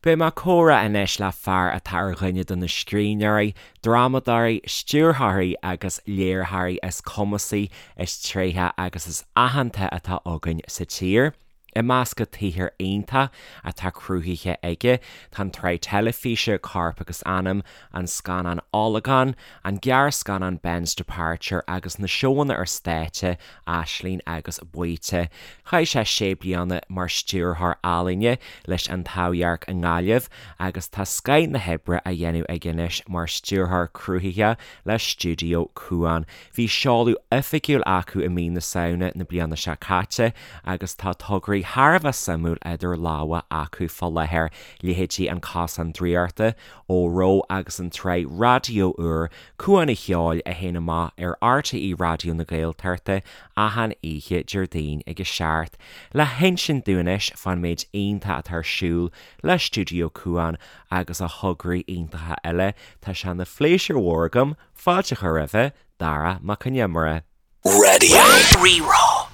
Beidh mé ag comhrá anois le fear atá ar dhuine de na scríbhneoirí, drámadóirí, stiúrthóirí agus léiritheoirí is cumasaí, is tréithe agus is aitheanta atá againn sa tír. I measc an tsaothair iontach atá cruthaithe aige tá an tsraith teilifíse Corp agus Anam, an scannán Olagón, an gearrscannán Ben's Departure agus na seóanna ar stáitse Aisling agus Baoite. Chaith sé sé bliana mar stiúrthóir ealaíne leis An Taibhdhearc i nGaillimh agus tá scoth na hoibre á dhéanamh aige anois mar stiúrthóir cruthaitheach le Stiúideo Cuan. Bhí seoladh oifigiúil acu i mí na Samhna na bliana seo caite agus tá tograí thar a bheith suimiúil idir lámha acu fá láthair, leithéidí An Cosán Draíochta, Óró agus an tsraith raidió úr Cuan an Cheoil a théann amach ar RTÉ Raidió na Gaeltachta achan oíche Déardaoin ag a 7. Le hinsint dúinn anois fán méid iontach atá ar siúl le Stiúideo Cuan agus a thograí iontacha eile, tá sé ina phléisiúr mhór agam fáilte a chur roimhe, Dara Mac Con Iomaire. Radio Rí-Rá.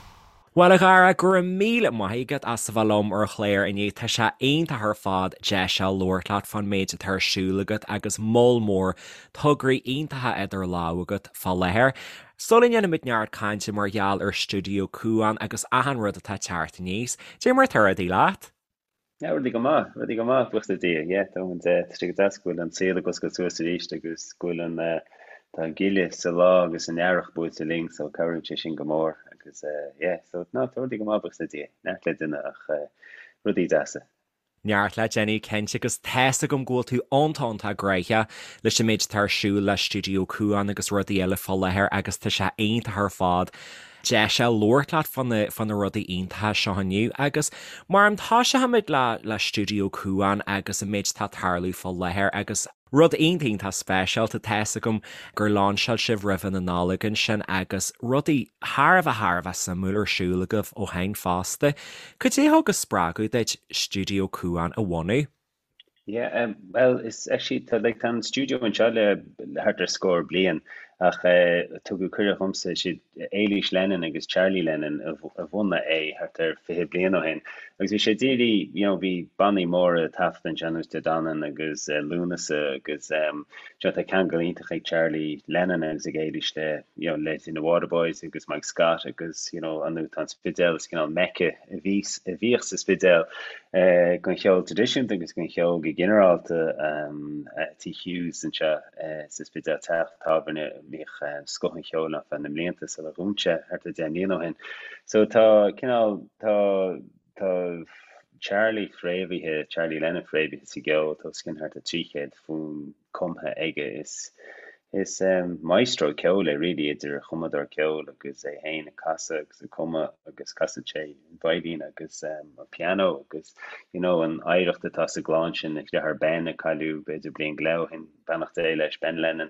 Bhuel a Dhara, go raibh míle maith agat as a bheith liom ar an chlár inniu. Tá sé iontach ar fad deis a labhairt leat fán méid atá ar siúl agat agus moll mór tograí iontacha idir lámha agat fá láthair. Sula ndéanaimid neart cainte mar gheall ar Stiúideo Cuan agus achan rud atá ag teacht aníos, cad é mar atá rudaí leat? Yeah, rudaí go maith, rudaí go maith, buíochas le Dia. Yeah, tá an, tá sé go deas go bhfuil an saol ag oscailt suas arís agus go bhfuil an, tá an ghile sa lá agus an earrach buailte linn so cabhraíonn sé sin go mór agus yeah, so no, tá rudaí go maith, buíochas le Dia. Neart le déanamh ach rudaí deasa. Neart le déanamh cinnte agus tá's agam go bhfuil tú iontach iontach gnóthach leis an méid atá ar siúl le Stiúideo Cuan agus rudaí eile fá láthair agus tá sé iontach ar fad deis a labhairt leat fá na, fá na rudaí iontacha seo inniu agus mar an toiseochaimid le, le Stiúideo Cuan agus an méid atá ag tarlú fá láthair agus rud iontach iontach speisialta, tá's agam gur lainseáil sibh roimhe na Nollag ansin agus rudaí thar a bheith thar a bheith suimiúil ar siúl agaibh ó shin fosta. Cad é a thug an spreagadh duit Stiúideo Cuan a bhunú? Yeah, um, well, is actually tá like, tá an stiúideo anseo le thart ar scór bliain ach eh, tugadh cuireadh dhomsa siad Éilís Lennon agus Charlie Lennon a, a bhunaigh é thart ar 20 bliain ó shin. Agus bhí sé dírí, you know, bhí bannaí móra taifeadta anseo ar nós De Danann agus eh, Lúnasa agus um, you know, tá ceangal iontach ag Charlie Lennon agus ag Éilís le, you know, le na Waterboys agus Mike Scott agus, you know, an tá an Spidéal is cineál Mecca a bhí, a bhíodh sa Spidéal don cheol traidisiúnta agus don cheol go ginearálta. Tigh Hughes anseo sa Spidéal, teach tábhairne a mbíodh scoth an cheoil ann feadh na mblianta sular dhún sé thart ar 10 mbliana ó shin. So tá cineál, tá, tá Charlie fréamhaithe, Charlie Lennon fréamhaithe sa gceol, tá os cionn thart ar 300 fonn cumtha aige. Is is maestro ceoil é really, idir chumadóir ceoil agus é féin ag casadh agus ag cumadh agus casann sé an veidhlín agus an pianó agus you know an oidhreacht atá sa gclann sin, a dheartháir Ben a cailleadh b'fhéidir bliain go leith ó shin, beannacht Dé leis, Ben Lennon.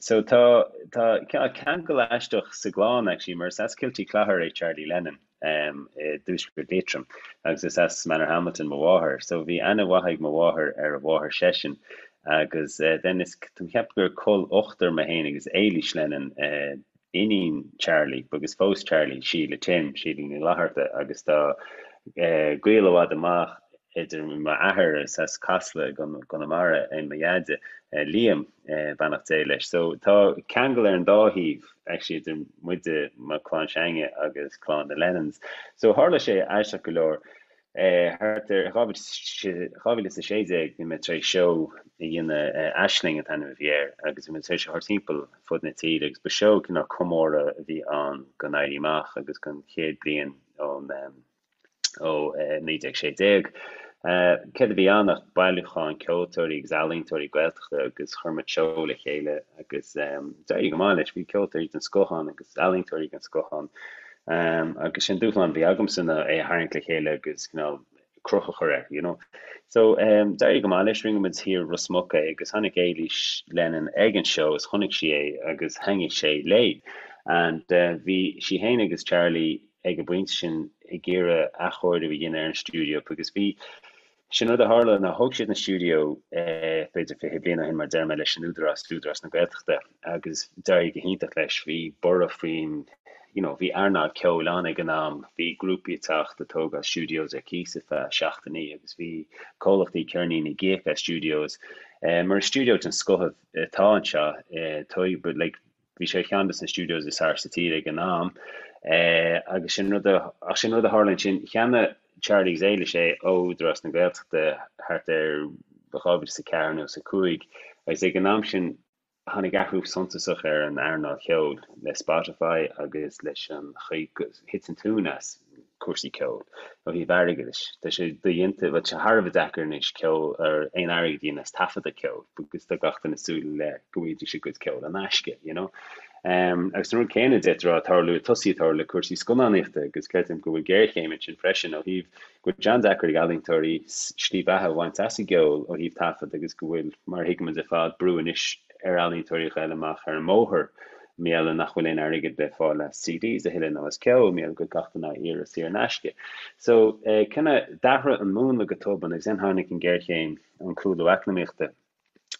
So tá tá ceangal aisteach sa gclann actually mar is as Kiltyclogher é Charlie Lennon. i dtuaisceart Liatroim agus is as Manorhamilton mo mháthair so bhí aithne mhaith ag mo mháthair ar a mháthair seisean agus then is tá mé ag ceapadh gur col ochtar mé féin agus Éilís Lennon iníon Charlie agus phós Charlie Síle Tim, Síle Ní Fhlatharta agus tá gaol i bhfad amach idir m'athair is as Casla i gConamara é mo dheaide, Liam, beannacht Dé leis. So tá ceangal ar an dá thaobh actually idir muide, mo chlann s'againne agus clann na Lennons. So tharla sé aisteach go leor, thart ar 2016 bhí mé tar éis seó a dhéanamh, Aisling an t-ainm a bhí air, agus bhí mé tar éis a thabhairt timpeall fud na tíre agus ba seó cineál comóradh a bhí ann don Éirí Amach agus don chéad bliain ón ó 1916. Céard a bhí ann ach bailiúchán ceoltóirí agus ealaíontóirí Gaeltachta agus chuir muid seó le chéile agus d'éirigh go maith leis. Bhí ceoltóirí den scoth ann agus ealaíontóirí den scoth ann agus sin dúshlán a bhí agamsa ná é a tharraingt le chéile agus cineál cruth a chur air, you know. So d'éirigh go maith leis, rinne muid thiar i Ros Muc é agus tháinig Éilís Lennon ag an seó is chonaic sí é agus thaitnigh sé léi. And bhí sí féin agus Charlie ag an bpointe sin ag iarraidh athchóiriú a dhéanamh ar an stiúideo agus bhí, sin rud a tharla ná thóg siad an stiúideo b'fhéidir 20 bliain ó shin mar deir mé leis an Údarás, Údarás na Gaeltachta agus d'éirigh go hiontach leis, bhí borradh faoin you know, bhí earnáil ceoil ann ag an am, bhí grúpaí ag teacht ag tógáil studios ar cíos ar feadh seachtainí agus bhí comhlachtaí ceirníní ag íoc as studios. Mar is stiúideo den scoth atá anseo, but like, bhí sé ar cheann de na studios is fearr sa tír ag an am. Agus sin rud a, ach sin rud a tharla ansin, cheannaigh Charlie agus Éilis é ó Údarás na Gaeltachta thart ar 2004 nó 5 agus ag an am sin Tháinig athrú suntasach ar an earnáil cheoil le Spotify agus leis an chaoi go thit an tóin as cúrsaí ceoil ó thaobh airgeadais. Tá sé dodhéanta, bhuel tá sé thar a bheith deacair anois ceol ar aon airgead a dhéanamh as taifeadadh ceoil because tá gach duine ag súil le go bhfaighidís a gcuid ceoil in aisce, you know. Agus an rud céanna d'fhéadfá a rá ag tarlú, ag tosaí ag tarlú le cúrsaí scannánaíochta agus creidim go bhfuil géarchéim ansin freisin ó thaobh go bhfuil sé an-deacair ag ealaíontóirí slí bheatha a bhaint as an gceol ó thaobh taifead agus go bhfuil, mar a thuigimid ar fad, brú anois ar ealaíontóirí a ghoil amach ar an mbóthar mar gheall nach bhfuil aon airgead le fáil as CDs a thuilleadh nó as ceol mar gheall go bhfuil gach duine á iarraidh saor in aisce. So, kinda d'athraigh an múnla go tobann agus then tháinig an géarchéim, an cúlú eacnamaíochta.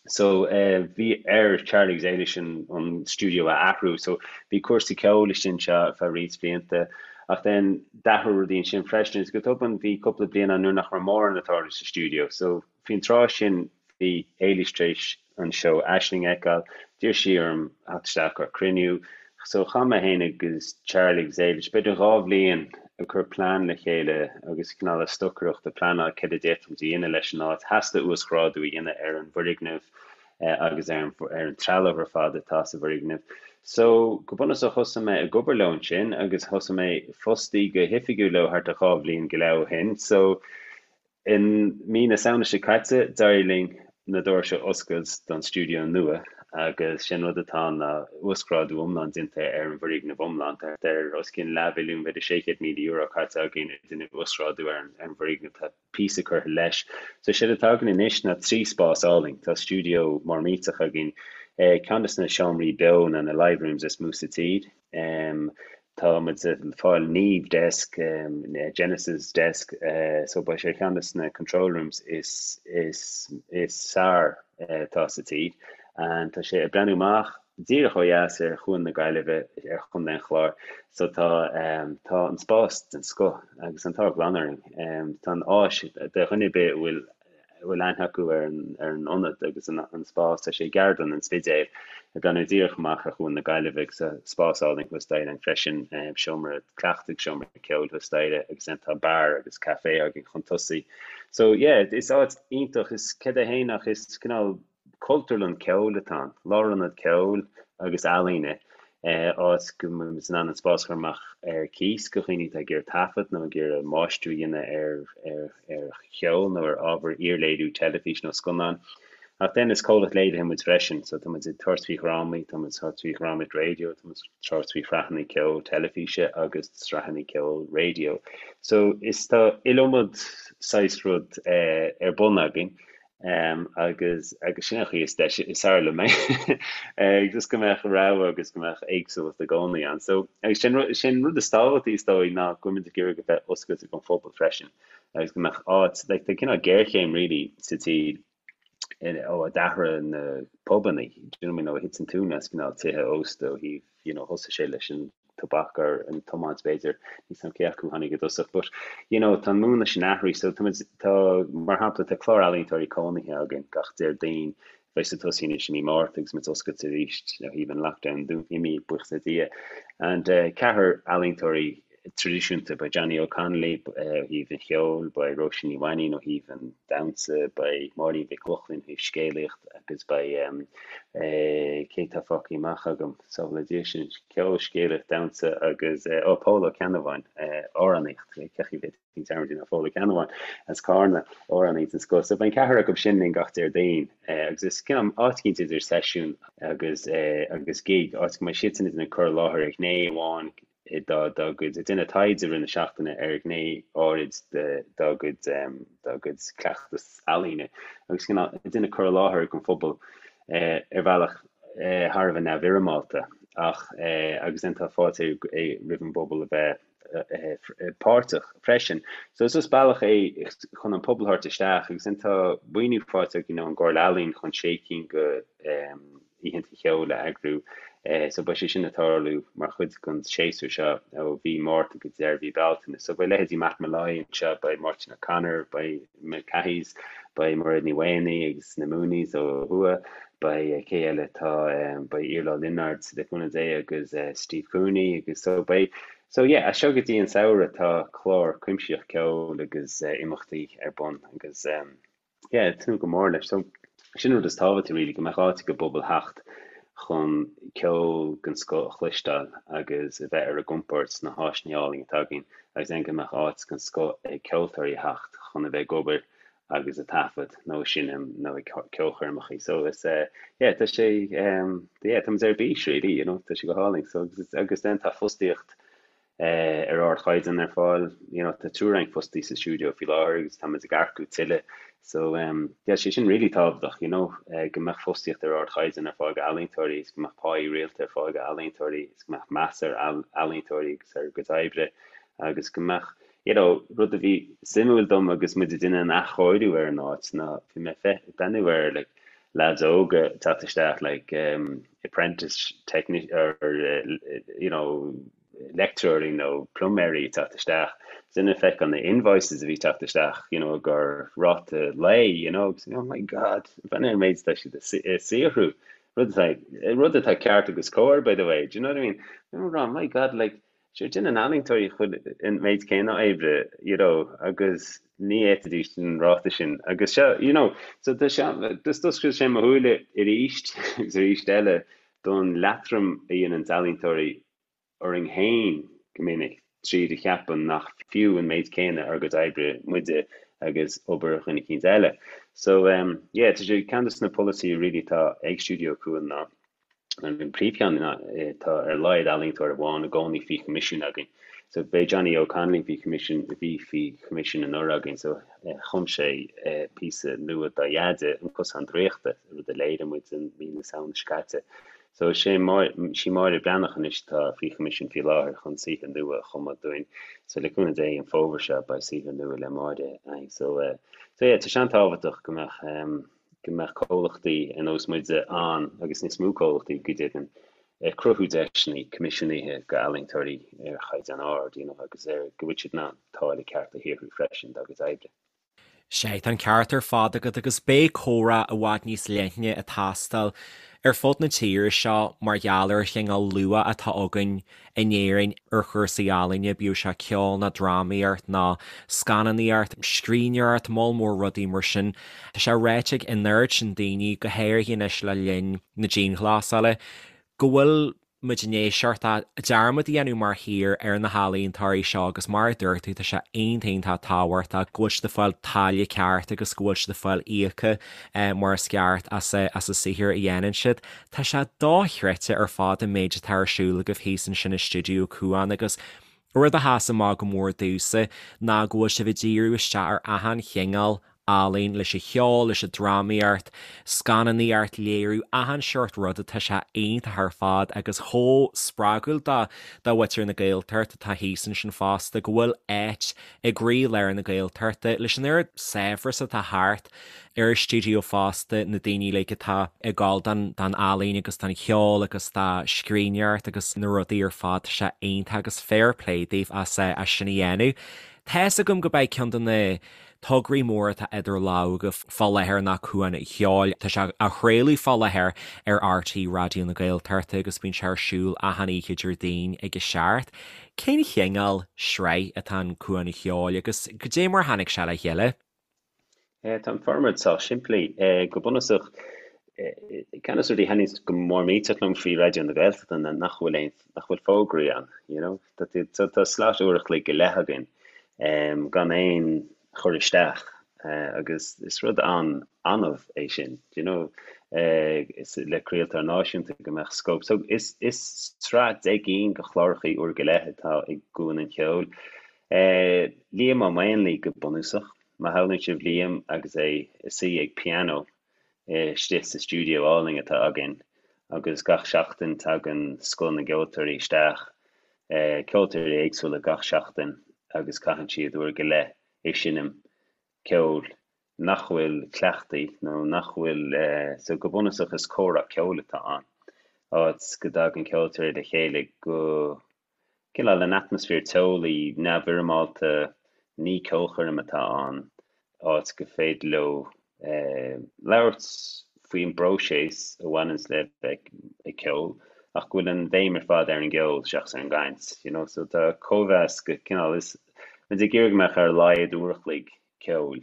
So bhí ar Charlie agus Éilis an stiúideo a athrú. So bhí cúrsaí ceoil istigh anseo ar feadh roinnt blianta ach then d'athraigh rudaí ansin freisin agus go tobann bhí cúpla bliain ann nuair nach raibh mórán ag tarlú sa stiúideo. So faoin tráth sin bhí Éilis tar éis an seó Aisling a fheiceáil, d'iarr sí orm theacht isteach ar cruinniú. So chaith mé féin agus Charlie agus Éilis b'fhéidir 2 bhliain ag cur plean le chéile agus cineál ag stocaireacht ag pleanáil céard a d'fhéadfadh muid a dhéanamh leis an áit. Theastaigh uasghrádú a dhéanamh ar an bhfoirgneamh agus ar an ar an trealamh ar fad atá sa bhfoirgneamh. So, go bunúsach thosaigh mé ag obair leo ansin agus thosaigh mé fostaí go hoifigiúil leo thart ar 2 bhliain go leith ó shin. So, I mí na Samhna seo caite, d'éirigh linn na doirse a oscailt don stiúideo nua agus sé an rud atá ann ná uasghrádú iomlán déanta ar an bhfoirgneamh iomlán. Tá thart ar os cionn leathmhilliún, b'fhéidir €600,000 caite againn ag déanamh uasghrádú ar an bhfoirgneamh. Tá píosa curtha leis. So séard atá againn anois ná 3 spás álainn. Tá stiúideo mór millteach againn, ceann de na seomraí beo nó na live rooms is mó sa tír. Tá muid ag fáil Neve desk, Genesis desk, so beidh sé ar cheann de na control rooms is is is fearr atá sa tír. And tá sé ag breathnú amach díreach ó dheas ar Chuan na Gaillimhe ar Chontae an Chláir. So tá tá an spás den scoth agus an t-ádh glan orainn. Tá an áis do dhuine ar bith a bhfuil a bhfuil aithne acu ar an ionad agus an spás. Tá sé i gCeardlann an Spidéil, ag breathnú díreach amach ar Chuan na Gaillimhe agus tá spás álainn thuas staighre ann freisin, seomra cleachtaidh, seomra ceoil thuas staighre agus then tá beár agus caifé againn chun tosaigh. So yeah, is áit iontach, is céard é féin ach is cineál Cultúrlann ceoil atá ann, lárionad ceoil agus ealaíne, áit go mbeidh muid in ann an spás a chur amach ar cíos go dhaoine atá ag iarraidh taifead nó ag iarraidh máistriú a dhéanamh ar cheol nó ar ábhar iarléiriú teilifíse nó scannán. Ach then is comhlacht léirithe muid freisin, so tá muid ag tabhairt faoi dhrámaí, tá muid ag tabhairt faoi dhrámaíocht raidió, tá muid ag tabhairt faoi shraitheanna ceoil teilifíse agus sraitheanna ceoil raidió. So is tá iliomad saghas rud ar bun againn. Agus agus sin an chaoi is deise is fearr liom é just go mbeadh rogha agus go mbeadh éagsúlacht i gcónaí ann. So agus sin sin rud is tábhachtaí is dóigh ná go bhfuil muid ag iarraidh go bheith oscailte don phobal freisin agus go mbeadh áit like tá cineál géarchéim really sa tír ó a d'athraigh na pubannaí, do you know what I mean, ó thit an tóin as cineál tithe ósta ó thaobh you know thosaigh sé leis an tobac or an tiomáint b'fhéidir, níl 's a'm cé acu a tháinig i dtosach but you know tá an múnla sin athraithe so tá muid, tá, mar shampla tá clár ealaíontóirí cónaithe againn gach Déardaoin, beidh sé ag tosaí anois i mí Márta agus muid oscailte arís ó thaobh an lockdown imithe buíochas le Dia and eh ceathrar ealaíontóirí traidisiúnta, beidh Johnny O'Connolly ó thaobh an cheoil, beidh Róisín Ní Mhainín ó thaobh an damhsa, beidh Máirín Mhic Lochlainn ó thaobh scéalaíocht agus beidh cé atá fágtha amach agam, sábhála Dia sinn, ceol, scéalaíocht, damhsa agus ó Pól Ó Ceannabháin, amhránaíocht, cén chaoi a bhféadfainn dearmad a dhéanamh ar Phól Ó Ceannabháin as Carna, amhránaí den scoth. So beidh an ceathrar acu sin linn gach Déardaoin agus is cineál áit eicínt idir seisiún agus agus gig, áit go mbeidh siadsan ag déanamh cur i láthair ar ghné amháin dá gcuid, ag déanamh taighde i rith na seachtaine ar ghné áirid dá gcuid, dá gcuid cleachtas ealaíne agus cineál ag déanamh cur i láthair don phobal ar bhealach thar a bheith neamhfhoirmeálta ach agus then tá fáilte roimh an bpobal a bheith páirteach freisin. So is just bealach é chun an pobal a thabhairt isteach agus then tá maoiniú faighte againn ón gComhairle Ealaíon chun sé cinn de oícheanta cheoil a eagrú. So beidh sé sin ag tarlú mar chuid den séasúr seo ó mhí Márta go deireadh mhí Bealtaine. So beidh leithéidí Matt Molloy anseo, beidh Máirtín O'Connor, beidh na Cathys, beidh Mairéad Ní Mhaonaigh agus na Mooneys ó thuaidh, beidh cé eile atá, beidh Iarla Ó Lionáird le cúnamh Dé agus Steve Cooney agus so beidh, so yeah, as seo go dtí an samhradh tá clár cuimsitheach ceoil agus imeachtaí ar bun agus yeah, ag tnúth go mór leis. So sin an rud is tábhachtaí really, go mbeadh áit ag an bpobal theacht chun ceol den scoth a chloisteáil agus a bheith ar a gcompord sna háiseanna álainn atá againn agus then go mbeadh áit den scoth ag ceoltóirí a theacht chun a bheith ag obair agus ag taifead nó ag seinm nó ag ceolchoirmeacha. So is eh yeah tá sé um yeah tá muid ar bís really you know tá sé go hálainn. So agus agus then tá fostaíocht eh ar ardchaighdeán ar fáil you know tá triúr againn fostaithe sa stiúideo faoi láthair agus tá muid ag earcú tuilleadh. So um yeah sé sin really tábhachtach you know eh go mbeadh fostaíocht ar ardchaighdeán ar fáil go ealaíontóirí is go mbeadh páí rialta ar fáil go ealaíontóirí is go mbeadh meas ar ealaíontóirí agus ar a gcuid oibre agus go mbeadh you know, rud a bhí suimiúil dom agus muid ag déanamh an athchóiriú ar an áit ná bhí mé ag breathnú ar like lads óga ag teacht isteach like um, apprentice technician or you know leictreoirí nó pluiméirí ag teacht isteach. Sin ag feiceáil na invoices a bhí teacht isteach, you know, gur ráta lae, you know, agus oh my god, breathnaigh ar an méid atá siad ag saothrú. Rud atá rud atá ceart agus cóir, by the way, do you know what I mean? I'm oh my god, like Sure, déanann ealaíontóirí an méid céanna oibre, you know, agus ní fhéadfaidís an ráta sin. Agus seo, you know, so tá sé, just d'oscail sé mo shúile arís agus arís eile don leatrom a dhéanann ealaíontóirí orainn féin go minic tríd a cheapadh nach fiú an méid céanna ár gcuid oibre muide agus obair dhuine eicínt eile. So, um, yeah, tá sé ceann de na polasaithe really atá ag Stiúideo Cuan ná An príomhcheann ná tá ar a laghad ealaíontóir amháin i gcónaí faoi choimisiún againn. So b'é Johnny Óg Connolly faoi choimisiún, a bhí faoi choimisiún anuraidh againn. So chum sé píosa nua dá dheaide, An Cosán Draíochta, rud a léirigh muid i mí na Samhna seo caite. So is é sí Máire Breathnach anois atá faoi choimisiún faoi láthair chun saothar nua a chumadh dúinn. So le cúnamh Dé an fómhar seo beidh saothar nua le Máire againn. So so yeah, tá sé an-tábhachtach go mbeadh go mbeadh comhlachtaí ar nós muide ann, agus níos mó comhlachtaí go deimhin, ag cruthú deiseanna coimisiúnaithe go ealaíontóirí ar chaighdeán ard, you know, agus ar go bhfuil siad in ann táille ceart a shaothrú freisin dá gcuid oibre. Sea, tá an ceart ar fad agat agus beidh comhrá i bhfad níos leithne ag teastáil ar fud na tíre seo mar gheall ar an chineál luach atá againn in Éirinn ar chúrsaí ealaíne, bíodh sé ceol ná drámaíocht ná scannánaíocht, scríbhneoireacht, moll mór rudaí mar sin. Tá sé ráite ag an oiread sin daoine, go háirithe anois le linn na dianghlasála, go bhfuil muid i ndiaidh seort dearmad a dhéanamh mar thír ar na healaíontóirí seo agus mar a dúirt tú, tá sé iontach iontach tábhachtach go bhfuil siad ag fáil táille ceart agus go bhfuil siad ag fáil íoctha mar is ceart as an saothar a dhéanann siad. Tá sé dochreidte ar fad an méid atá ar siúl agaibh thíos ansin i Stiúideo Cuan agus rud a sheas amach go mór domhsa ná go bhfuil sibh ag díriú isteach ar achan chineál ealaín, leis an cheol, leis an drámaíocht, scannánaíocht, léiriú, achan seort ruda, tá sé iontach ar fad agus chomh spreagúil do do mhuintir na Gaeltachta atá thíos ansin fosta go bhfuil áit i gcroílár na Gaeltachta leis an oiread saibhreas atá thart ar an stiúideo fosta, na daoine uilig atá ag gabháil don don ealaín agus don cheol agus do scríbhneoireacht agus na rudaí ar fad, tá sé iontach agus fair play daoibh as as sin a dhéanamh. Tá's agam go b'é ceann de na tograí móra atá idir lámha agaibh fá láthair ná Cuan an Cheoil. Tá sé á chraoladh fá láthair ar RTÉ Raidió na Gaeltachta agus bíonn sé ar siúl achan oíche Déardaoin ag a seacht. Cén chineál sraith atá in Cuan an Cheoil agus goidé mar a tháinig sé le chéile? Tá an formáid sách simplí. Go bunúsach, ceann de na rudaí a thaitníonns go mór millteach liom faoi Raidió na Gaeltachta ná nach bhfuil aon, nach bhfuil fógraí ann, you know. Tá, tá slot uair a chloig go leith againn gan aon chur isteach agus is rud an-annamh é sin, do you know, le craoltóir náisiúnta go mbeadh scóip. So is, is sraith 10 gcinn de chlárachaí uair go leith atá i gCuan an Cheoil. Liam Ó Maonlaí go bunúsach. Má shamhlaíonn sibh Liam agus é ag suí ag pianó istigh sa stiúideo álainn atá againn agus gach seachtain tagann scoth na gceoltóirí isteach, ceoltóirí éagsúla gach seachtain agus caitheann siad uair go leith ag seinm ceoil nach bhfuil cleachtaithe nó nach bhfuil, so go bunúsach is comhrá ceoil atá ann. áit go dtagann ceoltóirí le chéile go cineál in atmaisféar teolaí, neamhfhoirmeálta, ní ceolchoirm atá ann, áit go féidir leo labhairt faoin bpróiseas a bhaineanns le bheith ag ceol ach go bhfuil an bhéim ar fad ar an gceol seachas ar an gcaint, you know. So tá cóimheas go cineál, is muid ag iarraidh go mbeadh ar a laghad uair a chloig ceoil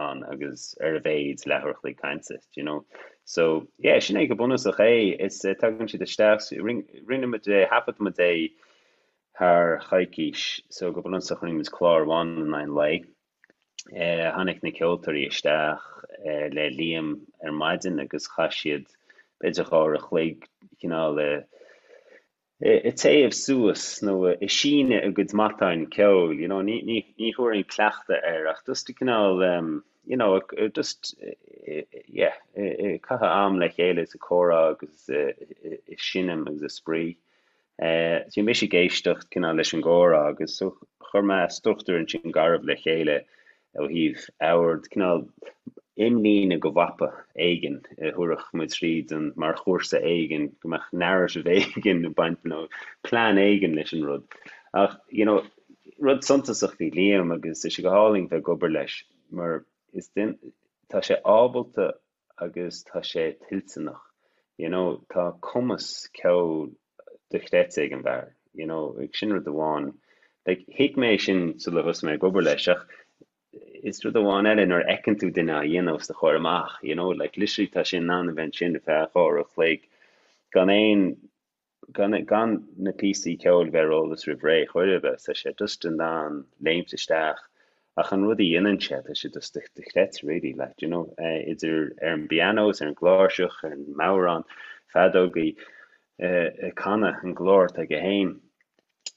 ann agus ar a mhéid leathuair a chloig cainte, do you know. So, yeah, sin é go bunúsach é. Is tagann siad isteach, rinne muid é, thaifead muid é thar choicís, so go bunúsach rinne muid clár amháin in aghaidh an lae. Tháinig na ceoltóirí isteach le Liam ar maidin agus chaith siad b'fhéidir 2 uair a chloig cineál ag téamh suas nó ag síneadh a gcuid matáin ceoil, you know, ní, ní, ní thabharfainn cleachtadh air ach just cineál, you know, just, yeah, ag caitheamh am le chéile is ag comhrá agus ag seinm agus ag spraoi. Bhí mise ag éisteacht cineál leis an gcomhrá agus so chuir mé struchtúr ansin garbh le chéile ó thaobh ord, cineál imlíne go mhapa éigin a thabharfadh muid tríd an, mar chúrsa éigin, go mbeadh narrative éigin ag baint nó plean éigin leis an rud. Ach, you know, rud suntasach faoi Liam agus tá sé go hálainn bheith ag obair leis mar is duine, tá sé ábalta agus tá sé toilteanach, you know, tá cumas ceoil dochreidte ag an bhfear, you know, sin rud amháin. Like, thuig mé sin sula thosaigh mé ag obair leis ach is rud amháin eile nuair a fheiceann tú duine á dhéanamh os do chomhair amach, you know, like literally tá sé in ann a bheith ansin ar feadh 2 uair a chloig gan aon gan gan na píosaí ceoil a bheith ar eolas roimh ré chor ar bith, tá sé just in ann léimt isteach ach an rud a dhéanann sé, tá sé just dochreidte really, like, you know, idir ar an bpianó is ar an gcláirseach, ar an mbodhrán, feadógaí, ag canadh an glór atá aige féin.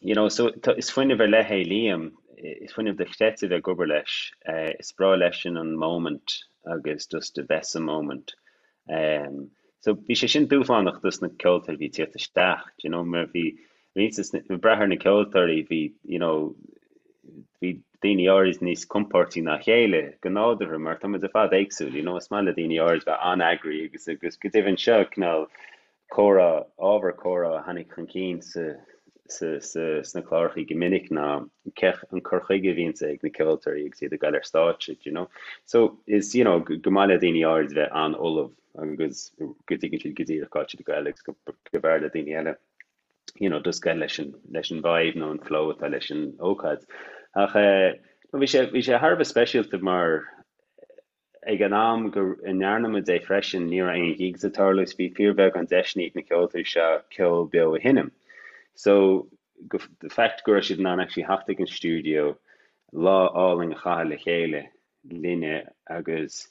You know, so tá, is fuinneamh ar leith é Liam, is fuinneamh dochreidte bheith ag obair leis, is breá leisean an moment agus just a bheith sa moment. So bhí sé sin dúshlánach dos na ceoltóirí a bhí ag tíocht isteach, do you know, mar bhí roinnt des na, ag brath ar na ceoltóirí, bhí, you know, bhí daoine áirid níos compóirtí ná a chéile go nádúrtha mar tá muid ar fad éagsúil, you know, is maith le daoine áirid bheith an-eagraithe agus agus go deimhin seo cineál comhrá, ábhar comhrá a tháinig chun cinn sa, sa, sa, sna clárachaí go minic ná cé, an cur chuige a bhíonns ag na ceoltóirí agus iad ag goil ar stáitse, do you know. So is, you know, go maith le daoine áirid bheith an-ullamh agus go dtuigeann siad go díreach cá bhfuil siad ag goil agus go, go mb'fhearr le daoine eile, you know, just goil leis an, leis an vibe nó an flow atá leis an ócáid. Ach eh, no, bhí sé, bhí sé thar a bheith speisialta mar Ag an am go ndearna muid é freisin, ní raibh aon gigs ag tarlú is bhí fíorbheagán deiseanna ag na ceoltóirí seo ceol beo a sheinm. So, the fact go raibh siad in ann actually theacht ag an stiúideo, lá álainn a chaitheamh le chéile linne agus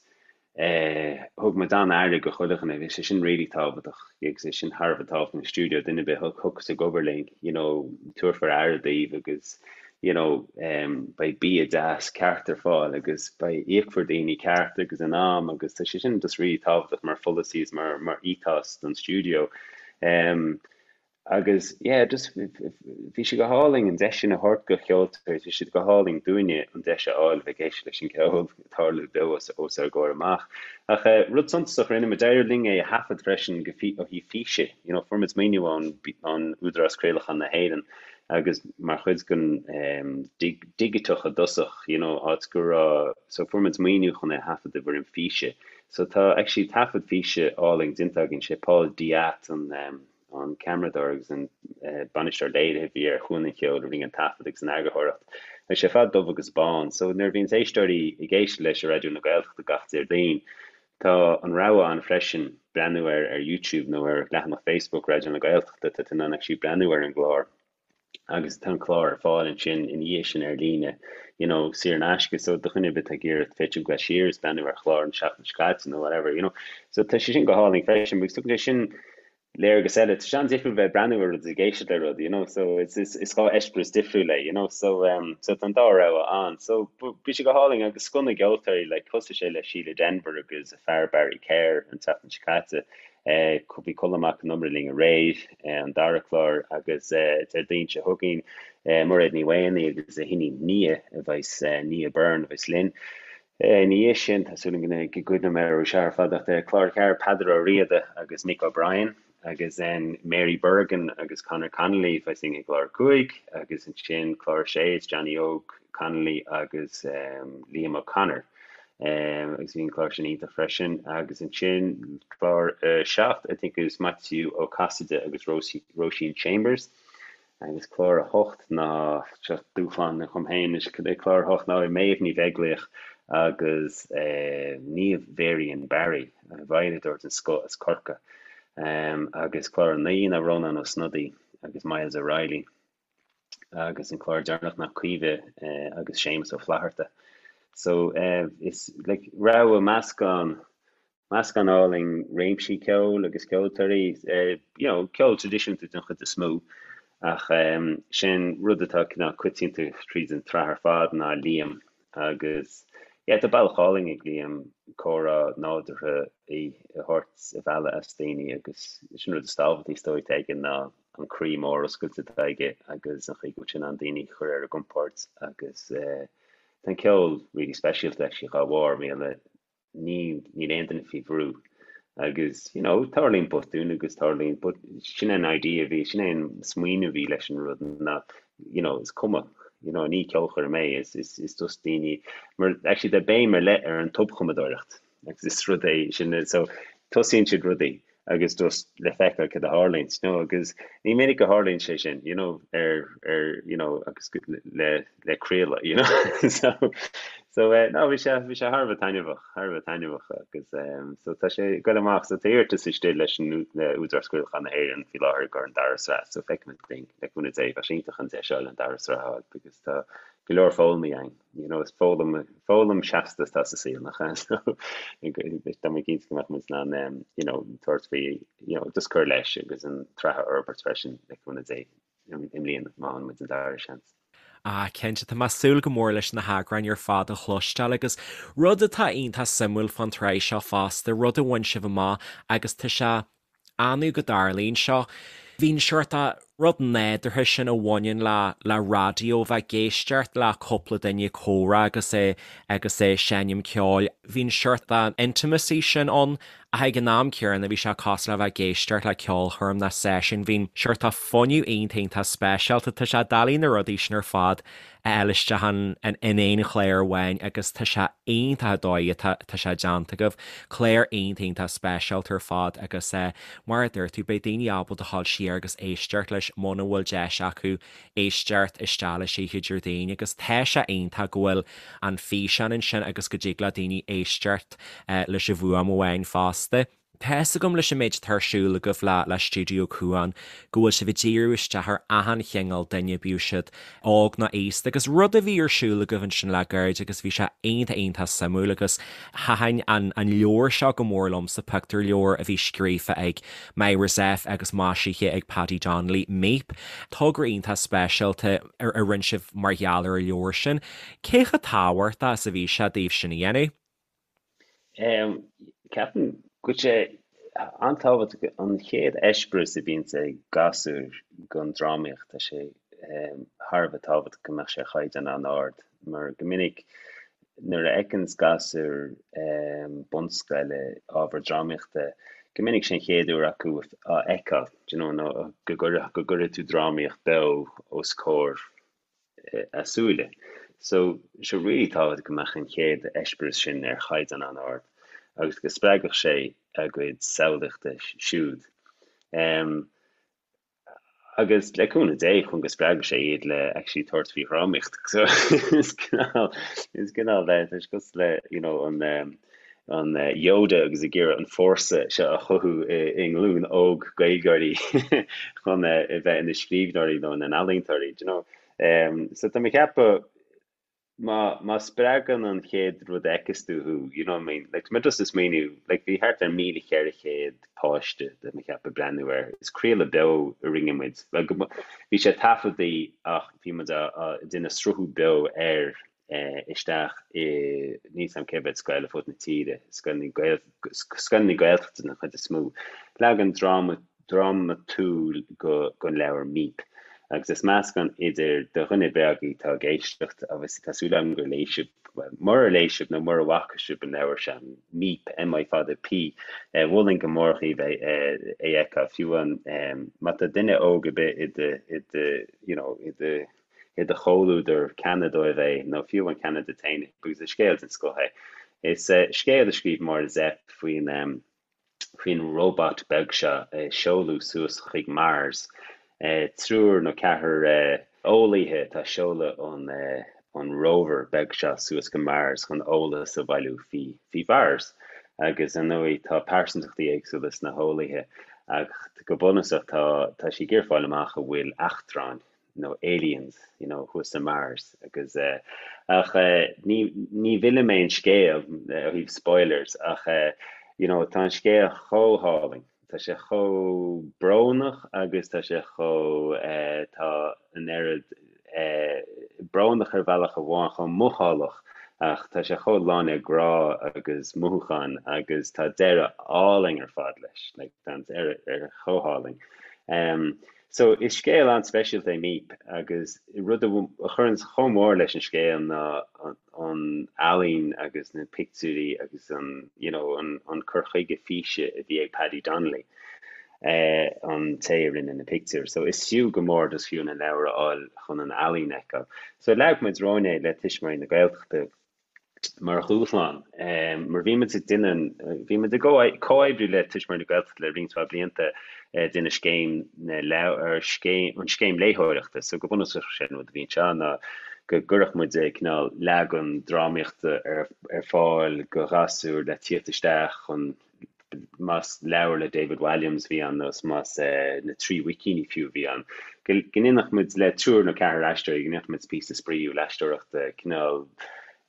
eh thug muid an-aire go chuile dhuine, bhí sé sin really tábhachtach agus é sin thar a bheith tábhachtach an stiúideo, duine ar bith a thiocfas ag obair linn, you know, tabharfar aire daoibh agus you know, beidh bia deas ceart ar fáil agus beidh, íocfar daoine ceart agus in am agus tá sé sin just really tábhachtach mar pholasaí is mar, mar ethos don stiúideo. Um, agus yeah, just bhí sé go hálainn an deis sin a thabhairt go cheoltóirí, bhí sé go hálainn dúinne an deis a fháil bheith ag éisteacht leis an gceol ag tarlú beo os, os ár gcomhair amach. Ach uh, rud suntasach rinne muid, d'éirigh linn é a thaifead freisin go ó thaobh físe, you know, fuair muid maoiniú ón, ón Údarás Craolacháin na hÉireann agus mar chuid den digiteach i dtosach, you know, áit go raibh, so fuair muid maoiniú chun é a thaifead i bhfoirm físe. So tá actually taifead físe álainn déanta againn, sé Paul Diat an an ceamaradóir agus an bainisteoir léirithe a bhí ar Chuan an Cheoil a rinne an taifead agus an eagarthóireacht. Tá sé ar fad dubh agus bán, so nuair a bhíonns éisteoirí ag éisteacht leis ar Raidió na Gaeltachta gach Déardaoin, Tá an rogha ann freisin breathnú air ar YouTube nó ar leathanach Facebook Raidió na Gaeltachta, tá tú in ann actually breathnú ar an gclár agus tá an clár ar fáil ansin ina dhiaidh sin ar líne, you know, saor in aisce, so do dhuine ar bith atá ag iarraidh féidir gabháil siar is breathnú ar chlár an seachtain seo caite nó whatever, you know. So tá sé sin go hálainn freisin, agus tugann sé sin léargas eile. Tá sé an-difriúil bheith ag breathnú ar rud is ag éisteacht le rud, you know, so it's, is, is dhá eispéireas difriúil é, you know, so, um, so tá an dá rogha ann. So bhí sé go hálainn agus scoth na gceoltóirí, like, thosaigh sé le Síle Denvir agus a fear Barry Kerr an tseachtain seo caite. Eh, bhí Colm Mac Con Iomaire linn aréir, eh, an dara clár agus eh, Déardaoin seo chugainn, eh, Mairéad Ní Mhaonaigh agus a hiníon Nia a bheas, eh, Nia Byrne a bheas linn. Ina dhiaidh sin, tá súil agam go gcuimhneoidh mé orthu seo ar fad ach clár 4, Peadar Ó Riada agus Mick O'Brien. Agus then Mary Bergin agus Conor Connolly I think i gclár 5 agus ansin clár 6 is Johnny Óg Connolly agus Liam O'Connor. Agus bhí an clár sin iontach freisin. Agus ansin clár 7 I think is Maitiú Ó Casaide agus Róisín Chambers. Agus clár 8 ná, seo dúshlán dhom féin anois, clár 8 ná Méabh Ní Bheaglaoich agus Niamh Varian Barry, veidhleadóir den scoth as Corcaigh. Agus clár 9 ná Rónán Ó Snodaigh agus Myles O'Reilly. Agus an clár deireanach ná Caoimhe agus Séamus Ó Flatharta. So is like rogha meascán Meascán álainn réimsí ceoil agus ceoltóirí, you know, ceol traidisiúnta den chuid is mó, ach sin rud atá cineál coitianta tríd an tsraith ar fad ná Liam agus yeah tá bealach álainn ag Liam comhrá nádúrtha a thabhairt a mhealladh as daoine agus sin rud is tábhachtaí is dóigh atá aige ná an croí mór oscailte atá aige agus an chaoi go bhfuil sé in ann daoine a chur ar a gcompord agus tá an ceol really speisialta actually dhá bharr, mar gheall ní, níl aon duine faoi bhrú agus you know tarlaíonn botúin agus tarlaíonn but sin é an idea a bhí, sin é an smaoineamh a bhí leis an rud ná you know is cuma you know ní ceolchoirm é is, is, is just daoine mar actually tá béim ar leith ar an tobchumadóireacht agus is rud é sin so tosaíonn siad rudaí agus just le feiceáil cad a tharlaíonn, you know, agus ní minic a tharlaíonn sé sin, you know, ar, ar, you know, agus le, le craoladh, you know, so, so, eh, no, bhí sé, bhí sé thar a bheith taitneamhach, thar a bheith taitneamhach agus, um, so tá sé ag goil amach, so tá iarratas istigh leis an, le Údarás Craolacháin na hÉireann faoi láthair i gcomhair an dara sraith, so feicfimid linn, le cúnamh Dé, bheadh sé iontach an deis a fháil an dara sraith a fháil because tá go leor foghlamtha againn. You know, is foghlaim, foghlaim seasta atá sa saol, nach ea? So, tá mé cinnte go mbeadh muid in ann, um, you know, tabhairt faoi, you know, just cur leis agus an tsraith a fhorbairt freisin le cúnamh Dé i mbliana, má fhaigheann muid an dara seans. Ah, cinnte, tá mé ag súil go mór leis na heagráin ar fad a chloisteáil agus rud atá iontach suimiúil fán tsraith seo fosta, rud a bhain sibh amach agus tá sé annamh go dtarlaíonn seo. Bhí an seort rud nádúrtha sin a bhaineann le le raidió, bheith ag éisteacht le cúpla duine ag comhrá agus é agus é seinm ceoil. Bhí an seort intimacy sin ann ach ag an am céanna bhí sé cosúil le bheith ag éisteacht le ceolchoirm nó seisiún. Bhí an seort fuinneamh iontach iontach speisialta. Tá sé doiligh na rudaí sin ar fad a fháil isteach in aon chlár amháin agus tá sé iontach an dóigh atá tá sé déanta agaibh. Clár iontach iontach speisialta ar fad agus mar a dúirt tú beidh daoine ábalta dhul siar agus éisteacht leis muna bhfuil deis acu éisteacht isteach leis oíche Déardaoin agus tá sé iontach go bhfuil an físeán ansin agus go dtig le daoine éisteacht leis an bhfuaim amháin fosta. Tá fhios agam leis an méid atá ar siúl agaibh le le Stiúideo Cuan go bhfuil sibh ag díriú isteach ar achan chineál duine, bíodh siad óg nó aosta agus rud a bhí ar siúl agaibh ansin le gairid agus bhí sé iontach iontach suimiúil agus thaitin an an leabhar seo go mór liomsa, pictiúrleabhar a bhí scríofa ag Myra Zepf agus maisithe ag Paddy Donnelly, Míp. Togra iontach speisialta a a rinne sibh mar gheall ar an leabhar sin. Cé chomh tábhachtach is a bhí sé daoibh sin a dhéanamh? Ceapaim go bhfuil sé an-tábhachtach an chéad eispéireas a bhíonns ag gasúir den drámaíocht, tá sé thar a bheith tábhachtach go mbeadh sé ar chaighdeán an-ard mar go minic nuair a fheiceanns gasúir bunscoile ábhar drámaíochta, go minic sé an chéad uair acu á fheiceáil, do you know, nó go gcuirfidh tú drámaíocht beo os comhair a súile. So, sé really tábhachtach go mbeadh an chéad eispéireas sin ar chaighdeán an-ard agus go spreagfadh sé a gcuid samhlaíochta siúd. Um, agus le cúnamh Dé chun go spreagfadh sé iad le actually tabhairt faoi dhrámaíocht. So is cineál is cineál le tá sé cosúil le you know an um, an Yoda agus ag iarraidh an fórsa seo a chothú i nglúin óg Gaeilgeoirí chun a bheith ina scríbhneoirí nó ina n-ealaíontóirí, do you know. So tá mé ag ceapadh má má spreagann an chéad rud a fheiceas tú thú, you know what I mean, like tá mé just ag smaoineamh, like bhí thart ar 1,400 páiste tá mé ag ceapadh ag breathnú air, is craoladh beo a rinne muid, well go bhí sé taifeadtaí ach bhí muid á déanamh sruthú beo air isteach i, níl 's a'm cé mhéad scoil ar fud na tíre, scoileanna scoileanna Gaeltachta den chuid is mó. Leagan dráma, drámatúil den leabhar Míp. Agus is meascán idir do dhuine beag atá ag éisteacht, obviously tá súil agam gur léigh sibh. Murar léigh sibh nó mura bhfaca sibh an leabhar seo, Míp, M I fada P, mholfainn go mór dhaoibh é a fheiceáil. Fiú amháin má tá duine óg ar bith i do, i do, you know, i do, i do chomhluadar, ceannaigh dóibh é, nó fiú amháin ceannaigh duit féin é, because is scéal den scoth é. Is scéal a scríobh Máire Zepf faoin, faoin robot beag seo a seoladh suas chuig Mars. Triúr nó ceathrar eolaithe atá ag seoladh an rover beag seo suas go Mars chun eolas a bhailiú faoi Mhars. Agus ar ndóigh tá pearsantachtaí éagsúla sna heolaithe ach go bunúsach tá tá siad ag iarraidh fáil amach an bhfuil eachtráin nó aliens you know thuas i Mars agus eh ach eh ní ní mhillfidh mé an scéal ó thaobh spoilers ach eh you know tá an scéal chomh hálainn tá sé chomh brónach agus tá sé chomh eh tá an oiread eh brónach ar bhealach amháin chomh mothálach ach tá sé chomh lán le grá agus mothúcháin agus tá deireadh álainn ar fad leis like tá an deireadh chomh hálainn. Um, So, is scéal an-speisialta é Míp agus rud a chuireann chomh mór leis an scéal ná an ealaín agus na pictiúirí agus an, you know, an cur chuige físe a bhí ag Paddy Donnelly, an té a rinne na pictiúir. So, is fiú go mór just fiú an leabhar a fháil chun an ealaín a fheiceáil. So, leag muid romhainn é le Tuismitheoirí na Gaeltachta. mar dhúshlán, mar bhí muid ag déanamh, bhí muid ag comhoibriú le Tuismitheoirí na Gaeltachta le roinnt mhaith blianta ag déanamh scéim na leabhar, scéim, an scéim léitheoireachta. So go bunúsach sé an rud a bhí anseo ná go gcuirfeadh muid cineál leagan drámaíochta ar ar fáil go ghasúir le tíocht isteach chun más leabhar le David Walliams a bhí ann nó más na Trí Mhuicíní fiú a bhí ann, go ndéanfadh muid le triúr nó ceathrar aisteoirí, go ndéanfadh muid píosa spraíúil aisteoireachta, cineál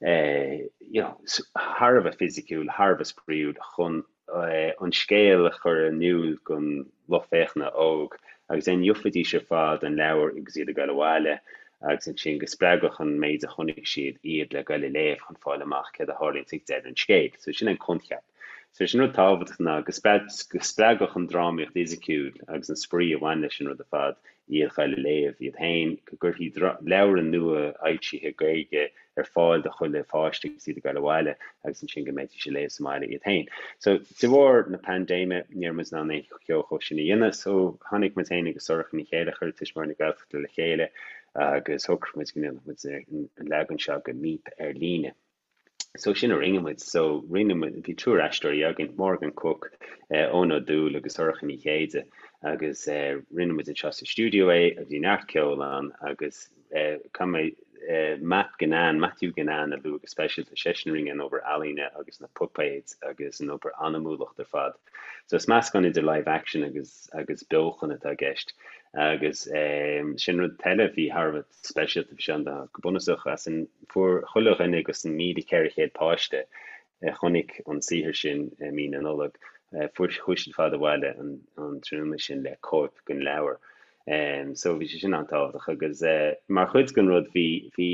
you know thar a bheith fisiciúil, thar a bheith spraíúil chun an scéal a chur in iúl don lucht féachana óg agus then gheofaidís ar fad an leabhar agus iad ag dul abhaile agus ansin go spreagfadh an méid a chonaic siad iad le goil a léamh chun fáil amach céard a tharlaíonns ag deireadh an scéil. So sin an coincheap. So is an rud tábhachtach ná go spreagfadh an drámaíocht fhisiciúil agus an spraoi a bhain leis an rud ar fad iad a ghoil a léamh iad féin, go gcuirfí leabhra nua fhoilsithe Gaeilge ar fáil do chuile pháiste agus iad ag goil abhaile agus ansin go mbeidís ag léamh sa mbaile iad féin. So de bharr na paindéime ní raibh muid in ann aon cheo chomh sin a dhéanamh so tháinig muid féin agus Sorcha Ní Chéilleachair Tuismitheoirí na Gaeltachta le chéile agus shocraigh muid go ndéanfadh muid an leagan seo de Míp ar líne. So sin a rinne muid. So rinne muid, bhí triúr aisteoirí againn, Morgan Cooke, Eoin Ó Dúill agus Sorcha Ní Chéide agus rinne muid anseo sa stiúideo é, bhí neart ceoil ann agus caithfidh mé Matt Ginnane, Matthew Ginnane a lua go speisialta, seisean a rinne an obair ealaíne agus na puipéid agus an obair anamúlacht ar fad. So is meascán idir live action agus agus beochan atá i gceist agus sin rud eile a bhí thar a bheith speisialta bhí sé an go bunúsach as an fuair chuile dhuine agus an 1,400 páiste a chonaic an saothar sin i mí na Nollag fuair chuaigh siad ar fad abhaile an an tráthnóna sin le cóip den leabhar. So bhí sé sin an-tábhachtach agus mar chuid den rud bhí bhí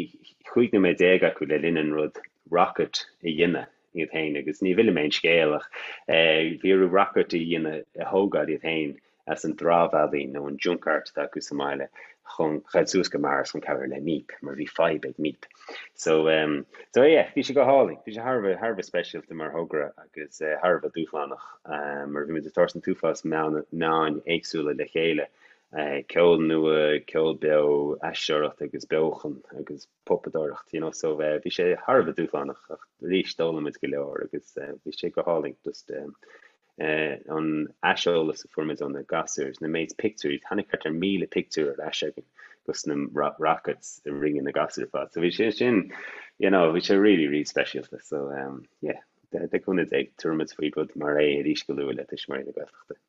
15 nóiméad acu le linn an rud rocket a dhéanamh iad féin agus ní mhillfidh mé an scéal ach bhí orthu rocket a dhéanamh a thógáil iad féin as an dramhealaín nó an junk art atá acu sa mbaile chun ghoil suas go Mars chun cabhrú le Míp mar bhí fadhb ag Míp. So um, so yeah, bhí sé go hálainn, bhí sé thar a bheith thar a bheith speisialta mar thogra agus uh, thar a bheith dúshlánach um, mar bhí muid ag tabhairt an t-uafás meán meáin éagsúla le chéile, uh, ceol nua, ceol beo, aisteoireacht agus beochan agus puipeadóireacht, you know, so uh, bhí sé thar a bheith dúshlánach ach arís d'fhoghlaim muid go leor agus uh, bhí sé go hálainn just um, an aiseolas a fuair muid ó na gasúir, na méid pictiúirí, tháinig thart ar 1,000 pictiúr ar ais againn dos na rockets a rinne na gasúir ar fad. So bhí sé sin, you know, bhí sé really, really speisialta. So um, yeah, le cúnamh Dé, tabharfaidh muid faoi rud mar é arís go luath le Tuismitheoirí na Gaeltachta.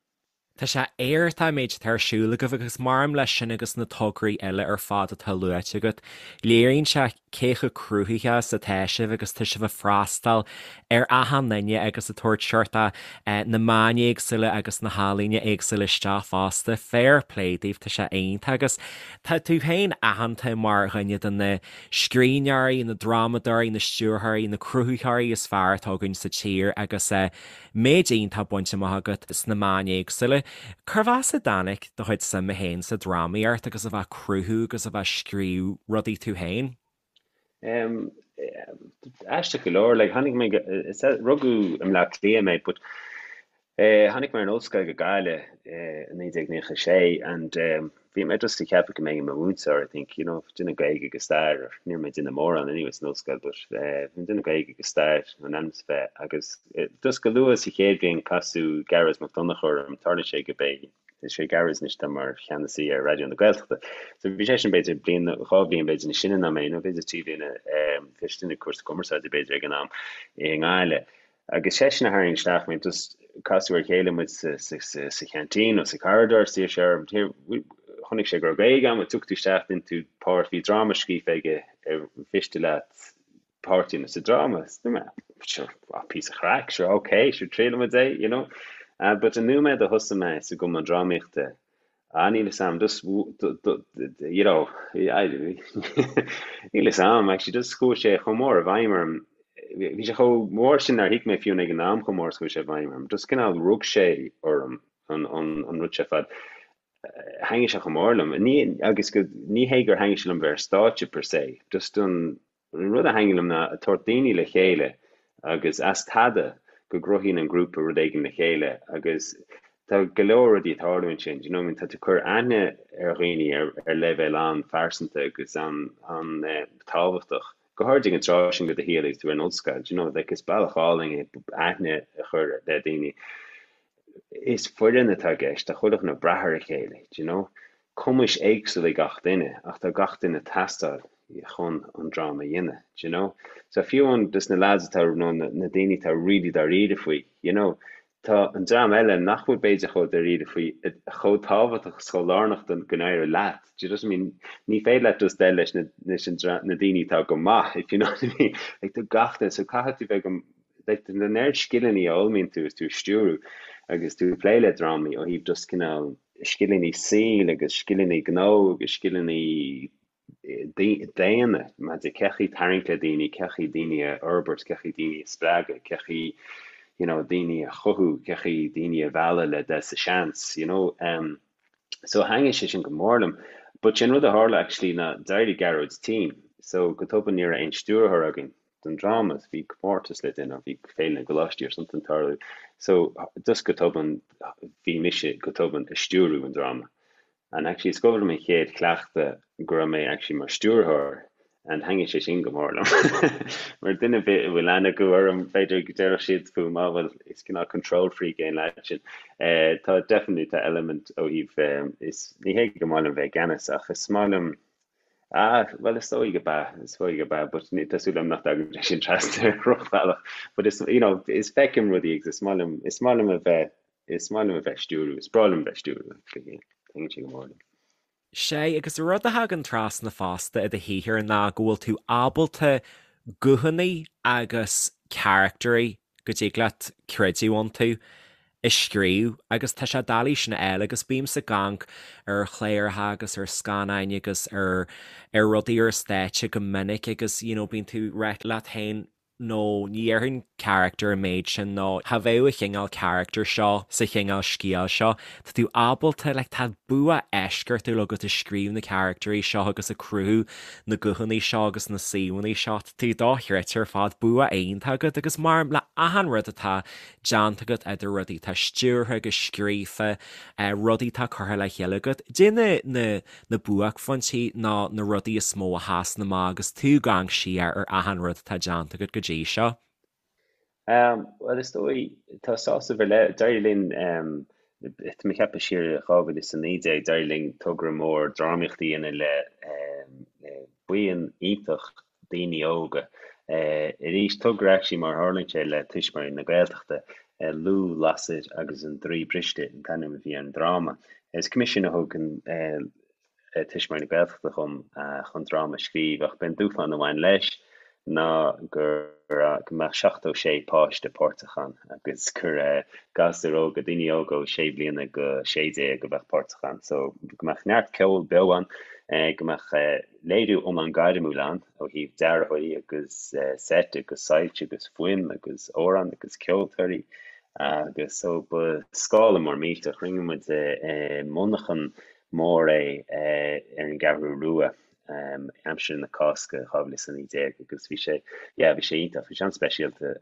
Tá sé iontach an méid atá ar siúl agaibh agus maraon leis sin agus na tograí eile ar fad atá luaite agat, léiríonn sé cé chomh cruthaitheach is atá sibh agus tá sibh ag freastal ar achan duine agus ag tabhairt seort na meáin éagsúla agus na healaíona éagsúla isteach fosta. Fair play daoibh, tá sé iontach agus tá tú féin aitheanta mar dhuine de na scríbhneoirí, na drámadóirí, na stiúrthóirí, na cruthaitheoirí is fearr atá againn sa tír agus méid iontach bainte amach agat sna meáin éagsúla. Cérbh as a dtáinig do chuid suime féin sa drámaíocht agus a bheith ag cruthú agus a bheith ag scríobh rudaí tú féin? Aisteach go leor, like, tháinig mé, rugadh i mBleá Cliath mé, but tháinig mé ar an ollscoil go Gaillimh i 1996 and bhí mé just ag ceapadh go mbeinn i mo mhúinteoir, I think, you know, déanamh Gaeilge agus stair, or ní raibh mé ag déanamh mórán anyway san ollscoil, but bhí mé ag déanamh Gaeilge agus stair in ainm is a bheith agus just go luath sa chéad bhliain casadh Gearóid Mac Donncha orm, tarlaíonn sé go bé Is é Gearóid anois atá mar cheannasaí ar Raidió na Gaeltachta. So bhí seisean b'fhéidir bliain nó 2 bhliain b'fhéidir níos sine ná mé, nó b'fhéidir 3 bliana, bhí seisean ag cúrsa cumarsáide b'fhéidir ag an am i nGaillimh. Agus seisean a tharraing isteach mé, just casadh ar a chéile muid sa, sa, sa, sa cheaintín nó sa corridor, is d'iarr sé orm, here, chonaic sé go raibh Gaeilge agam, tiocfaidh tú isteach, déanfaidh tú páirt, bhí dráma scríofa aige ar mhiste leat páirt a dhéanamh sa dráma. Sure, píosa craic, sure, ok, sure, triailfidh muid é, you know. But an nóiméad a thosaigh mé sa gcumann drámaíochta, ah, níl 'fhios a'm, just, you know, níl 'fhios a'm, actually, just chuaigh sé chomh mór i bhfeidhm orm, bhí sé chomh mór sin nár thuig mé fiú ag an am chomh mór is chuaigh sé i bhfeidhm orm. Just cineál rug sé orm an, an, an rud seo ar fad. Thaitnigh sé chomh mór liom. Ní, agus go, ní hé gur thaitnigh sé liom bheith ar stáitse per se, just an, An rud a thaitníonn liom ná ag tabhairt daoine le chéile agus as tada go gcruthaíonn an grúpa rud éigin le chéile agus tá go leor rudaí ag tarlú ansin, do you know what I mean, tá tú ag cur aithne ar dhaoine ar ar leibhéal an-phearsanta agus an-tábhachtach, go háirid ag an tráth sin de do shaol agus tú ar an ollscoil, do you know, like is bealach álainn é aithne a chur le daoine. Is foireann atá i gceist, tá chuile dhuine ag brath ar a chéile, do you know. Cumais éagsúla ag gach duine ach tá gach duine ag teastáil chun an dráma a dhéanamh, do you know. So fiú amháin dos na lads atá, nó na daoine atá really dáiríre faoi, you know, tá an dream eile nach bhfuil b'fhéidir chomh dáiríre faoi chomh tábhachtach is chomh lárnach don go n-éireoidh leat, do you know what I mean? Ní féidir leat just dul leis na, leis an na daoine atá go maith, if you know what I mean. Like tá gach duine, so caithfidh tú bheith go, like an oiread scileanna a fhoghlaimíonn tú is tú ag stiúrú agus tú ag plé le drámaí ó thaobh just cineál scileanna saoil agus scileanna gnó agus scileanna daonna maidir cén chaoi tarraingt le daoine, cén chaoi daoine a fhorbairt, cén chaoi daoine a spreagadh, cén chaoi you know daoine a chothú, cén chaoi daoine a mhealladh le dul sa seans, you know. Um, so thaitnigh sé sin go mór liom. But sin rud a tharla actually ná d'éirigh Gearóid tinn, so go tobann ní raibh aon stiúrthóir againn. don dráma, bhí comórtas le déanamh, bhí Féile na gColáistí or something ag tarlú. So just go tobann bhí mise go tobann ag stiúrú an dráma. And actually is cuimhin liom an chéad chleachtadh go raibh mé actually mar stiúrthóir and thaitnigh sé sin go mór liom. Mar duine ar bith a bhfuil aithne acu orm b'fhéidir go déarfadh siad fúm, ah well is cineál control freak é an lad sin. Eh, tá definitely tá element ó thaobh eh, is ní hé go maith liom bheith i gceannas ach is maith liom Ah, bhuel is dóigh go b'ea, is dóigh go b'ea, but tá súil agam nach dtagann sé sin trasna ar dhrochbhealach. But is, you know, is feicim rudaí agus is maith liom, is maith liom a bheith, is maith liom a bheith ag stiúrú, is breá liom a bheith ag stiúrú actually, yeah. Taitníonn sé go mór liom. Sea, agus rud a thagann trasna fosta i do shaothar ná go bhfuil tú ábalta guthanna agus caractairí go dtig leat creidiúint iontu a scríobh agus tá sé doiligh sin a fháil agus bímse ag amharc ar chláracha agus ar scannáin agus ar ar rudaí ar stáitse go minic agus you know bíonn tú ag rá leat féin no ní dhéarfainn character an méid sin nó cha bheadh an chineál character seo sa chineál scéal seo. Tá tú ábalta like tá bua eisceachtúil agat ag scríobh na caractairí seo agus ag cruthú na guthanna seo agus na suíomhanna seo. Tá tú dochreidte ar fad, bua iontach agat agus mar le achan rud atá déanta agat idir rudaí atá stiúrtha agus scríofa, rudaí atá curtha le chéile agat, cad é na na buaicphointí nó na rudaí is mó a sheasann amach agus tú ag amharc siar ar achan rud atá déanta agat go dtí seo. Bhuel, is dóigh, tá sásamh ar leith, d'éirigh linn, tá mé ag ceapadh siar i 2019, d'éirigh linn togra mór drámaíochta a dhéanamh le buíon iontach daoine óga. Arís, togra actually mar a tharlaíonn sé le Tuismitheoirí na Gaeltachta, Lugh, Lasair agus an Draoi Briste an t-ainm a bhí ar an dráma. Is coimisiún a thug an Tuismitheoirí na Gaeltachta dhom chun dráma a scríobh ach b'é an dúshlán a bhain leis ná go go mbeadh 76 páiste páirteach ann agus gur gasúir óga, daoine óga ó 6 bliana go 16 a bheadh páirteach ann. So go mbeadh neart ceol beo ann, go mbeadh léiriú iomlán gairmiúil ann ó thaobh dearthóirí agus seit agus soilse agus fuaim agus amhráin agus ceoltóirí agus so ba scála mór millteach. Rinne muid i monarchan mór é ar an gCeathrú Rua. Aimsir na Cásca 2019 agus bhí sé, yeah, bhí sé iontach, bhí sé an-speisialta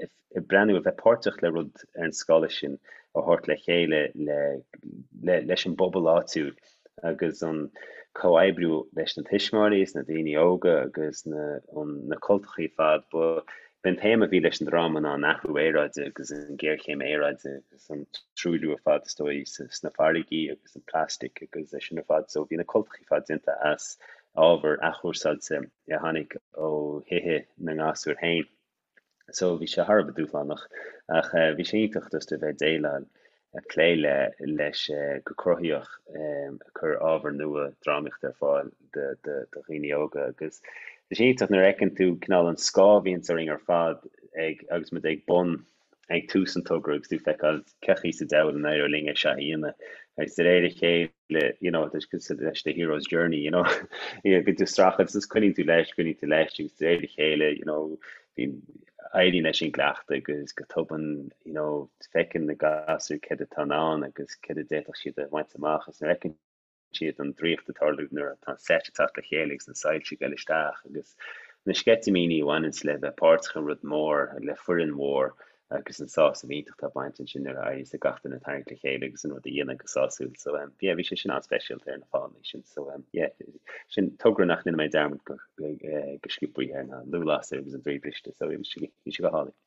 ag breathnú, a bheith páirteach le rud ar an scála sin a thabhairt le chéile le, le, leis an bpobal áitiúil agus an comhoibriú leis na tuismitheoirí is na daoine óga agus na, an, na cultachaí ar fad. Ba, b'in téama a bhí leis an dráma ná an athrú aeráide agus an ghéarchéim aeráide. agus an truailliú ar fad is dóigh sna farraigí agus an plastic agus é sin ar fad. So bhí na cultachaí ar fad déanta as ábhar athchúrsáilte a tháinig ó thithe na ngasúr féin. So bhí sé thar a bheith dúshlánach ach bhí sé iontach just a bheith ag déileáil, ag plé le leis go cruthaitheach ag cur ábhar nua drámaíochta ar fáil do dhaoine óga agus tá sé iontach nuair a fheiceann tú cineál an scáth a bhíonns orainn ar fad ag agus muid ag bun ag tús an togra agus tú ag feiceáil cén chaoi sa diabhal an éireoidh linn é seo a dhéanamh agus de réir a chéile you know tá sé cosúil leis the hero's journey you know bíonn tú ag streachailt agus coinníonn tú leis coinníonn tú leis agus de réir a chéile you know bíonn éiríonn leis an gcleachtadh agus go tobann you know feiceann na gasúir céard atá in ann agus céard a d'fhéadfadh siad a bhaint amach agus nuair a fheiceann siad an draíocht ag tarlú nuair atá an seit ag teacht le chéile agus na soilse ag dul isteach agus na sceitimíní a bhaineanns le bheith páirteach i rud mór, le foireann mhór agus an sásamh iontach atá ag baint ansin nuair a éiríos le gach duine tarraingt le chéile agus an rud a dhéanamh go sásúil. So um, yeah, bhí sé sin an-speisialta ar na fáthanna sin. So um, yeah, sin togra nach ndéanfaidh mé dearmad go, go, eh, go sciobtha air ná Lúthlásair agus an Draoi Briste. So bhí sé, bhí sé go hálainn.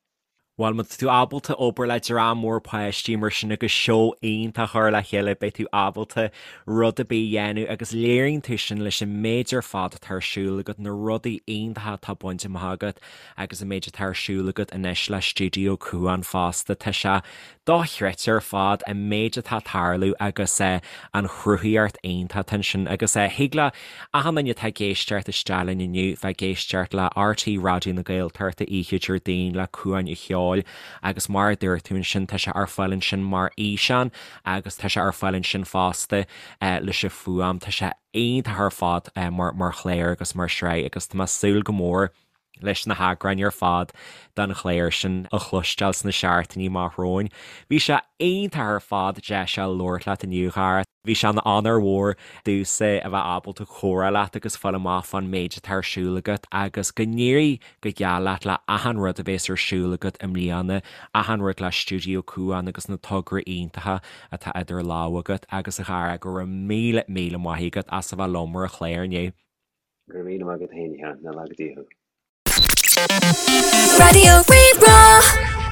Bhuel, má tá tú ábalta obair le dream mór páistí mar sin agus seó iontach a chur le chéile, beidh tú ábalta rud ar bith a dhéanamh agus léiríonn tú sin leis an méid ar fad atá ar siúl agat, na rudaí iontacha atá bainte amach agat agus an méid atá ar siúl agat anois le Stiúideo Cuan fosta. Tá sé dochreidte ar fad an méid atá ag tarlú agus an chruthaíocht iontach atá ansin agus thig le achan duine atá ag éisteacht isteach linn inniu bheith ag éisteacht le RTÉ Raidió na Gaeltachta oíche Déardaoin le Cuan an Cheoil agus mar a dúirt tú ansin tá sé ar fáil ansin mar fhíseán agus tá sé ar fáil ansin fosta leis an fuaim. Tá sé iontach ar fad mar chlár agus mar shraith agus tá mé ag súil go mór leis na heagráin ar fad den chlár sin a chloisteáil sna seachtainí amach romhainn. Bhí sé iontach ar fad deis a labhairt leat inniu, a Dhara. Bhí sé ina onóir mhór domhsa a bheith ábalta comhrá leat agus fáil amach fán méid atá ar siúl agat agus go n-éirí go geal leat le achan rud a bhéas ar siúl agat i mbliana, achan rud le Stiúideo Cuan agus na tograí iontacha atá idir lámha agat agus a Dhara, go raibh míle míle maith agat as a bheith liom ar an chlár inniu. Go raibh míle maith agat féin, a Sheáin. Nach laga Dia thú. Raidió Rí-Rá.